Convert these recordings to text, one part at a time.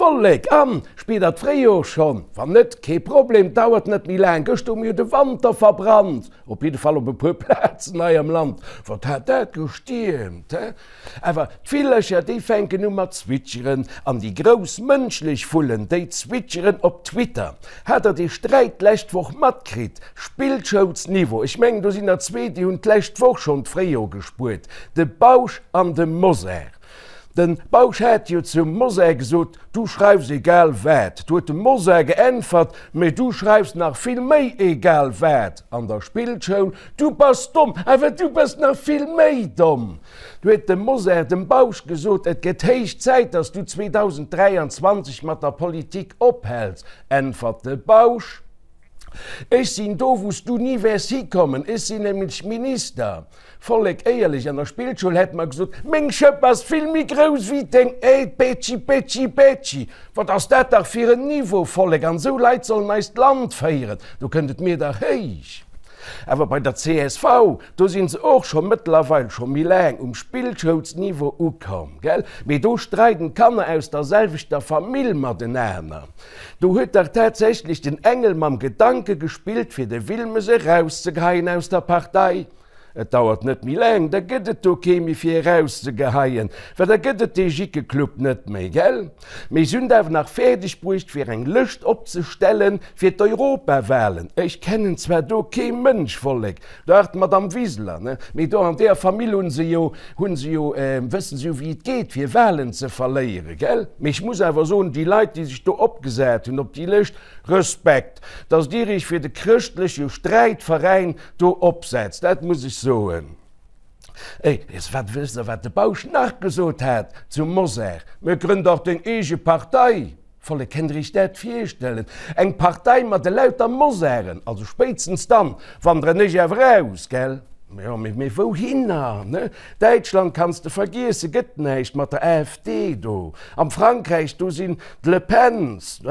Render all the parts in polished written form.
Vollek, an spiert der d'Fréijor schonn? Wann net, kee Problem, dauert net méi laang. Gëschter hu mir jo de Wanter verbrannt, op jidde Fall op e puer Plazen hei am Land. Wat hat dat gestiermt, he? Awer d'Villercher, déi fänken u mat zwitscheren, an déi grouss mënschlech Vullen, déi zwitscheren op Twitter. Hat der dee Sträit d'lescht Woch matkritt? Spillschoulsniveau, ech mengen do sinn der zwee, déi hunn d'lescht Woch schonn d'Fréijor gespuert, de Bausch an de Mosar. De Bausch hat jo zum Mosar gesot, Du schreifs egal wat. Du huet de Mosar geäntwert, Mee du schreifs nach vill méi egal wat an der Spillschoul. Du bass domm, awer du bass nach vill méi domm. Du huet de Mosar dem Bausch gesot, Et gëtt héich Zäit, datt s du 2023 mat der Politik ophäls. Äntwert de Bausch, Ech sinn do, wou s du ni wäers hikommen, ech sinn nämlech Minister. Vollek éierlech, an der Spillschoul hätt mer gesot, Meng Schëpp ass vill méi grouss wéi deng, ey, Betschi, Betschi, Betschi. Wat ass dat dach fir en Niveau, Vollek, an esou Leit sollen eist Land féieren, do kënnt et mir dach héich. Awer bei der csv, do sinn se och scho mëttlerweil scho méi laang um Spillschoulsniveau ukomm, gell? Mee do streiden d'Kanner aus der selwechter Famill matenaner. Do huet dach tatsächlech den Engel mam Gedanke gespillt fir de Wilmes erauszegeheien aus der Partei. Et dauert net méi laang, da gëtt et do kee méi fir erauszegeheien, well da gëtt et dee Jickeclub net méi, gell? Mee se hunn et awer nach fäerdeg bruecht fir eng Lëscht opzestellen fir d'Europawahlen. Ech kennen zwar do kee Mënsch, Vollek, dach d'Madame Wiseler, ne, mee do an deeër Famill hunn se jo, hunn se jo, wëssen se jo wéi et geet fir Wahlen ze verléieren, gell? Mee ech muss awer soen, déi Leit déi sech do opgesat hunn op déi Lëscht, Respekt, dass Dir Iech fir de chrëschtleche Sträitveräin do opsetzt, dat muss ech soen. Ey, wat wësst Der, wat de Bausch nach gesot hat zum Mosar? Mä grënn dach deng eege Partei! Vollek, kennt Der Iech dat virstellen? Eng Partei mat elauter Mosaren? Also spéitstens dann wanderen ech awer aus, gell? Jo, mee wouhinner, ne? Däitschland kanns de vergiessen, gëtt näischt mat der AfD do. Am Frankräich, do sinn d'Le Pens.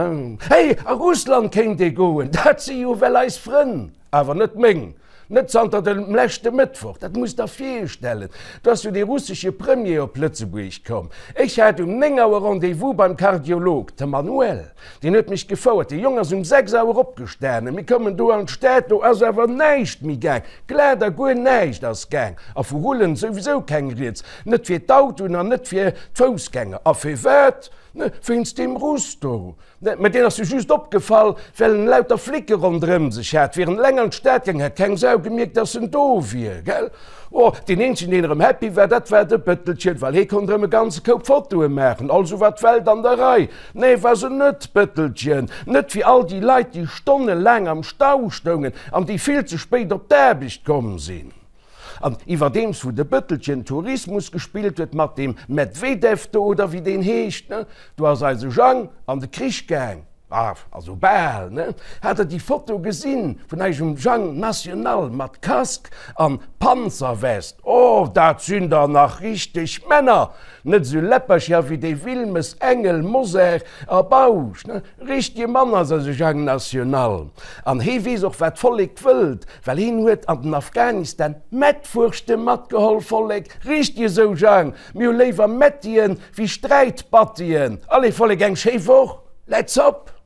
Hey, a Russland kéint ee goen, dat si jo well eis Frënn. Awer net meng. Net zanter dem leschte Mëttwoch. Dat musst der virstellen. Do ass jo dee russesche Premier op Lëtzebuerg komm. Ech hat um 9 Auer Rendez-vous beim Kardiolog, de Manuel. Deen huet mech gefouert. Dee Jong ass um 6 Auer opgestanen. Mir koumen do an d'Stad, do ass awer näischt méi gaang. Glat a guer näischt ass gaang. A vu Rullen souwisou keng Rieds. Net fir d'Autoen an net fir d'Foussgänger. A firwat? Wéinst deem Russ do. Mä deen ass jo just opgefall, well en lauter Flicke ronderëm sech hat. Wier en eleng an d'Stad gaang, hätt keng Sau gemierkt, dass en do wier, gell? Oh, deen eenzegen, deen erëm happy war, dat war de Bëttelchen, well hee konnt erëm e ganze Koup Fotoe maachen. Also war d'Welt an der Rei. Nee, war se net, Bëttelchen. Net fir all déi Leit, déi stonnelaang am Stau stoungen an déi vill ze spéit op d'Aarbecht komm sinn. An iwwerdeems wou de Bëttelchen Tourismus gespillt huet mat deem Medvedev do, oder wéi deen heescht, ne, do ass eise Jang an de Krich gaang, ah, also bal, ne. Hat der déi Foto gesinn vun eisem Jang National mat Casque an Panzerwest? Oh, dat sinn der nach richteg Männer, net esou Läppercher wéi dee Wilmes, Engel, Mosar a Bausch, ne. Richtege Mann ass eise Jang National. An hee weess och wat d'Vollek wëllt, well heen huet an den Afghanistan Mettwurschte matgeholl. Vollek, richteg esou Jang, mir hu léiwer Mettien wéi Sträitbattien. Allez Vollek, eng schéi Woch, let's op!